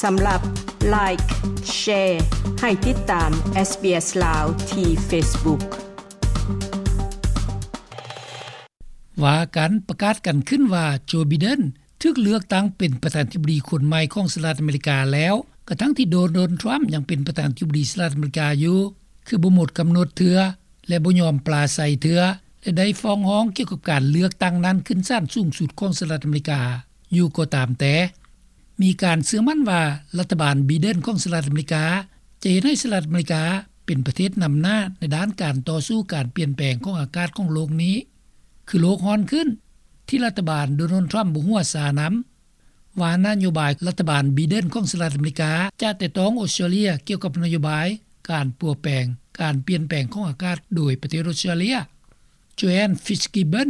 ສຳລັບ Like, Share ໃຫ້ຕິດຕາມ SBS ລາວ ທີ່ Facebook. ວ່າກັນ ປະກາດກັນຂຶ້ນວ່າ ໂຈ ໄບເດັນ ຖືກເລືອກຕັ້ງເປັນປະທານທິບໍດີຄົນໃໝ່ຂອງສະຫະລັດອາເມລິກາແລ້ວ, ກະທັງທີ່ ໂດນັລ ທຣຳ ຍັງເປັນປະທານທິບໍດີສະຫະລັດອາເມລິກາຢູ່, ຄືບໍ່ໝົດກຳນົດເທື່ອ ແລະ ບໍ່ຍອມປາໄສເທື່ອ ແລະ ໄດ້ຟ້ອງຮ້ອງກ່ຽວກັບການເລືອກຕັ້ງນັ້ນຂຶ້ນສານສູງສຸດຂອງສະຫະລັດອາເມລິກາຢູ່ກໍຕາມແຕ່. ມີການເຊື່ອໝັ້ນວ່າ ລັດຖະບານໄບເດັນຂອງສະຫະລັດອາເມລິກາ ຈະເຮັດໃຫ້ສະຫະລັດອາເມລິກາເປັນປະເທດນຳໜ້າໃນດ້ານການຕໍ່ສູ້ການປ່ຽນແປງຂອງອາກາດຂອງໂລກນີ້ ຄືໂລກຮ້ອນຂຶ້ນ ທີ່ລັດຖະບານ ໂດນັລ ທຣຳ ບໍ່ຫົວຊານຳ. ວ່ານະໂຍບາຍລັດຖະບານໄບເດັນຂອງສະຫະລັດອາເມລິກາ ຈະແຕະຕ້ອງອົດສະຕຣາເລຍກ່ຽວກັບນະໂຍບາຍການປົວແປງ ການປ່ຽນແປງຂອງອາກາດໂດຍປະເທດອົດສະຕຣາເລຍ. ໂຈແອນ ຟິດສ໌ກິບເບິນ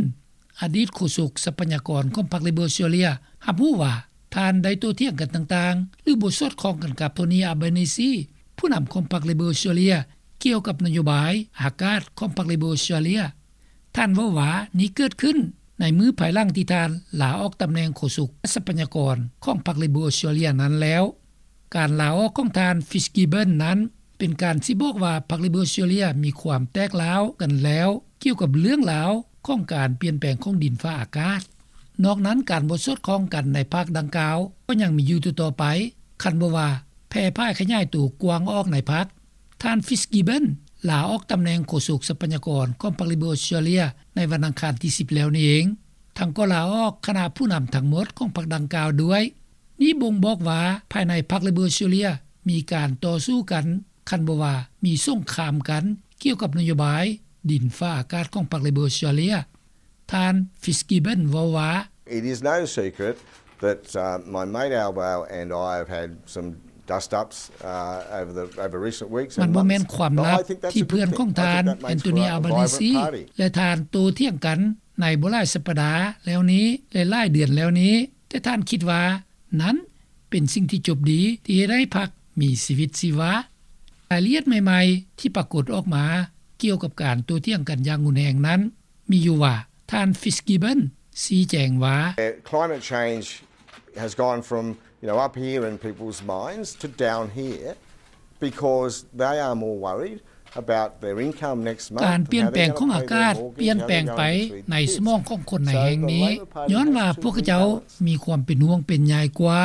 ອະດີດໂຄສົກຊັບພະຍາກອນຂອງພັກເລເບີອົດສະຕຣາເລຍ ຮັບຮູ້ວ່າ ທ່ານໄດ້ໂຕ້ຖຽງກັນຕ່າງໆ ຫຼື ບໍ່ສອດຄ່ອງກັນກັບ ໂທນີ ອາບານີຊີ ຜູ້ນຳຂອງພັກເລເບີອົດສະຕຣາເລຍ ກ່ຽວກັບນະໂຍບາຍອາກາດຂອງພັກເລເບີອົດສະຕຣາເລຍ. ທ່ານເວົ້າວ່າ ນີ້ເກີດຂຶ້ນໃນມື້ພາຍຫຼັງທີ່ທ່ານລາອອກຕຳແໜ່ງໂຄສົກຊັບພະຍາກອນຂອງພັກເລເບີອົດສະຕຣາເລຍນັ້ນແລ້ວ. ການລາອອກຂອງທ່ານ ຟິດສ໌ກິບເບິນ ນັ້ນ ເປັນການຊີ້ບອກວ່າ ພັກເລເບີອົດສະຕຣາເລຍມີຄວາມແຕກຮ້າວກັນແລ້ວ ກ່ຽວກັບເລື່ອງລາວຂອງການປ່ຽນແປງຂອງດິນຟ້າອາກາດ. ນອກນັ້ນ ການບໍ່ສອດຄ່ອງກັນໃນພັກດັ່ງກ່າວ ກໍຍັງມີຢູ່ຕໍ່ໆໄປ, ຄັນບໍ່ວ່າແຜ່ຜາຍຂະຫຍາຍໂຕກວ້າງອອກໃນພັກ. ທ່ານ ຟິດສ໌ກິບເບິນ ລາອອກຕຳແໜ່ງໂຄສົກຊັບພະຍາກອນຂອງພັກເລເບີອົດສະຕຣາເລຍ ໃນວັນອັງຄານທີສິບແລ້ວນີ້ເອງ, ທັງກໍລາອອກຄະນະຜູ້ນຳທັງໝົດຂອງພັກດັ່ງກ່າວດ້ວຍ. ນີ້ບົ່ງບອກວ່າ ພາຍໃນພັກເລເບີອົດສະຕຣາເລຍມີການຕໍ່ສູ້ກັນ, ຄັນບໍ່ວ່າມີສົງຄາມກັນ ກ່ຽວກັບນະໂຍບາຍດິນຟ້າອາກາດຂອງພັກເລເບີອົດສະຕຣາເລຍ. ທ່ານ ຟິດສ໌ກິບເບິນ ເວົ້າວ່າ It is no secret that, uh, my mate Al Bow and I have had some dust-ups, uh, over the, over recent weeks and months. ມັນບໍ່ແມ່ນຄວາມລັບທີ່ເພື່ອນຂອງທ່ານ ແອນໂທນີ ອາບານີຊີ ແລະ ທ່ານໂຕ້ຖຽງກັນໃນບໍ່ຫຼາຍສັບປະດາແລ້ວນີ້ ແລະ ຫຼາຍເດືອນແລ້ວນີ້, ແຕ່ທ່ານຄິດວ່ານັ້ນເປັນສິ່ງທີ່ຈົບດີ ທີ່ເຮັດໃຫ້ພັກມີຊີວິດຊີວາ. ລາຍລະອຽດໃໝ່ໆທີ່ປາກົດອອກມາກ່ຽວກັບການໂຕ້ຖຽງກັນຢ່າງຮຸນແຮງນັ້ນ ມີຢູ່ວ່າ ທ່ານ ຟິດສ໌ກິບເບິນ ຊີ້ແຈງວ່າ Climate change has gone from, you know, up here in people's minds to down here because they are more worried about their income next month. ການປ່ຽນແປງຂອງອາກາດປ່ຽນແປງໄປໃນສະໝອງຂອງຄົນໃນແຫ່ງນີ້ ຍ້ອນວ່າພວກເຂົາເຈົ້າມີຄວາມເປັນຫ່ວງເປັນໃຍກວ່າ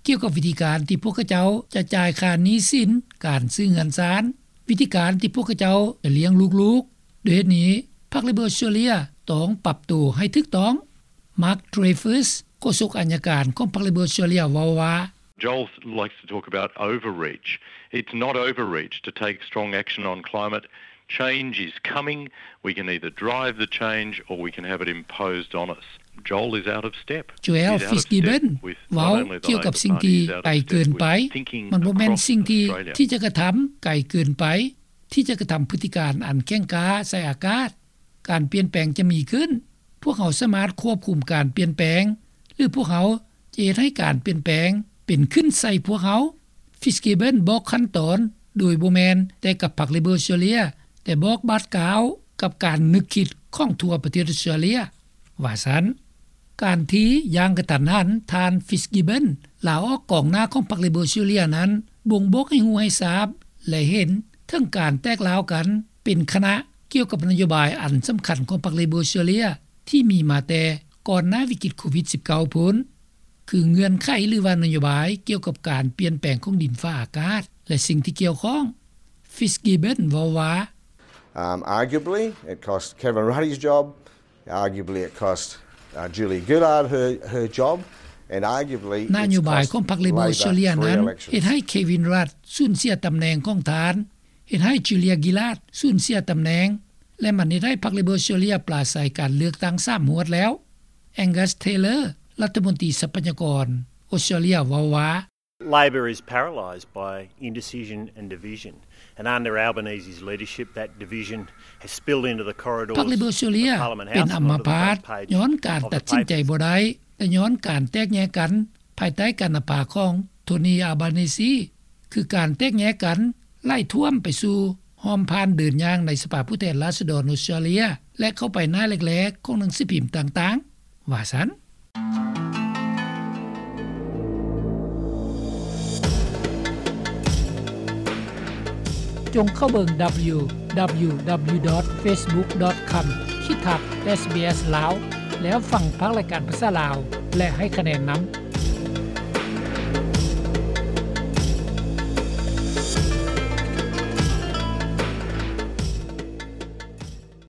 ກ່ຽວກັບວິທີການທີ່ພວກເຂົາເຈົ້າຈະຈ່າຍຄ່າໜີ້ສິນ, ການຊື້ເຮືອນຊານ, ວິທີການທີ່ພວກເຂົາເຈົ້າຈະລ້ຽງລູກໆ. ດ້ວຍເຫດນີ້ ພັກເລເບີອົດສະຕຣາເລຍຕ້ອງປັບໂຕໃຫ້ຖືກຕ້ອງ. ມາກ ເທຣເຟີສ ໂຄສົກອັຍການຂອງພັກເລເບີອົດສະຕຣາເລຍ ເວົ້າວ່າ Joel likes to talk about overreach. It's not overreach to take strong action on climate. Change is coming. We can either drive the change or we can have it imposed on us. Joel is out of step. ໂຈແອນ ຟິດສ໌ກິບເບິນ ເວົ້າກ່ຽວກັບສິ່ງທີ່ໄກເກີນໄປ. ມັນບໍ່ແມ່ນສິ່ງທີ່ ທີ່ຈະກະທຳໄກເກີນໄປ ທີ່ຈະກະທຳພຶດຕິການອັນແຂງກ້າໃສ່ອາກາດ. ການປ່ຽນແປງຈະມີຂຶ້ນ. ພວກເຮົາສາມາດຄວບຄຸມການປ່ຽນແປງ ຫຼື ພວກເຮົາຈະເຮັດໃຫ້ການປ່ຽນແປງເປັນຂຶ້ນໃສ່ພວກເຮົາ. ຟິດສ໌ກິບເບິນ ບອກຂັ້ນຕອນໂດຍບໍ່ແມ່ນແຕ່ກັບພັກເລເບີອົດສະຕຣາເລຍ, ແຕ່ບອກບາດກ້າວກັບການນຶກຄິດຂອງທົ່ວປະເທດອົດສະຕຣາເລຍ ວ່າຊັ້ນ. ການທີ່ຢ່າງກະທັນຫັນ ທ່ານ ຟິດສ໌ກິບເບິນ ລາອອກກອງໜ້າຂອງພັກເລເບີອົດສະຕຣາເລຍນັ້ນ ບົ່ງບອກໃຫ້ຮູ້ໃຫ້ຊາບ ແລະ ເຫັນເຖິງການແຕກຮ້າວກັນເປັນຄະນະ ກ່ຽວກັບນະໂຍບາຍອັນສຳຄັນຂອງພັກເລເບີອົດສະຕຣາເລຍ ທີ່ມີມາແຕ່ກ່ອນໜ້າວິກິດໂຄວິດສິບເກົ້າພຸ້ນ ຄືເງື່ອນໄຂ ຫຼືວ່ານະໂຍບາຍກ່ຽວກັບການປ່ຽນແປງຂອງດິນຟ້າອາກາດ ແລະ ສິ່ງທີ່ກ່ຽວຂ້ອງ. ຟິດສ໌ກິບເບິນ ເວົ້າວ່າ Um, arguably, it cost Kevin Rudd's job. Arguably, it cost, uh, Julia Gillard her, her job. And arguably, ນະໂຍບາຍຂອງພັກເລເບີອົດສະຕຣາເລຍນັ້ນ ເຮັດໃຫ້ເຄວິນ ຣັດ ສູນເສຍຕຳແໜ່ງຂອງທ່ານ, ເຮັດໃຫ້ ຈູເລຍ ກິລາດ ສູນເສຍຕຳແໜ່ງ ແລະ ມັນເຮັດໃຫ້ພັກເລເບີອົດສະຕຣາເລຍປາໄສການເລືອກຕັ້ງສາມຫວດແລ້ວ. ແອງກັສ ເທເລີ ລັດຖະມົນຕີຊັບພະຍາກອນອົດສະຕຣາເລຍ ເວົ້າວ່າ Labor is paralysed by indecision and division, and under Albanese's leadership, that division has spilled into the corridors of Parliament House and onto the front page of the paper. ພັກເລເບີອົດສະຕຣາເລຍເປັນອຳມະພາດ ຍ້ອນການຕັດສິນໃຈບໍ່ໄດ້ ແລະ ຍ້ອນການແຕກແຍກກັນ ພາຍໃຕ້ການນຳພາຂອງ ໂທນີ ອາບານີຊີ ຄືການແຕກແຍກກັນໄຫຼຖ້ວມໄປສູ່ຮ່ອມຜ່ານເດີນຍ່າງໃນສະພາຜູ້ແທນລາຊະດອນອົດສະຕຣາເລຍ ແລະ ເຂົ້າໄປໜ້າແລກໆຂອງໜັງສືພິມຕ່າງໆ ວ່າຊັ້ນ. ຈົ່ງເຂົ້າເບິ່ງ ດັບເບິນຢູ ດັບເບິນຢູ ດັບເບິນຢູ ດອດ ເຟສບຸກ ດອດ ຄອມ ຂີດທັບ ເອສບີເອສ ລາວ ແລ້ວຟັງພາກລາຍການພາສາລາວ ແລະ ໃຫ້ຄະແນນນຳ.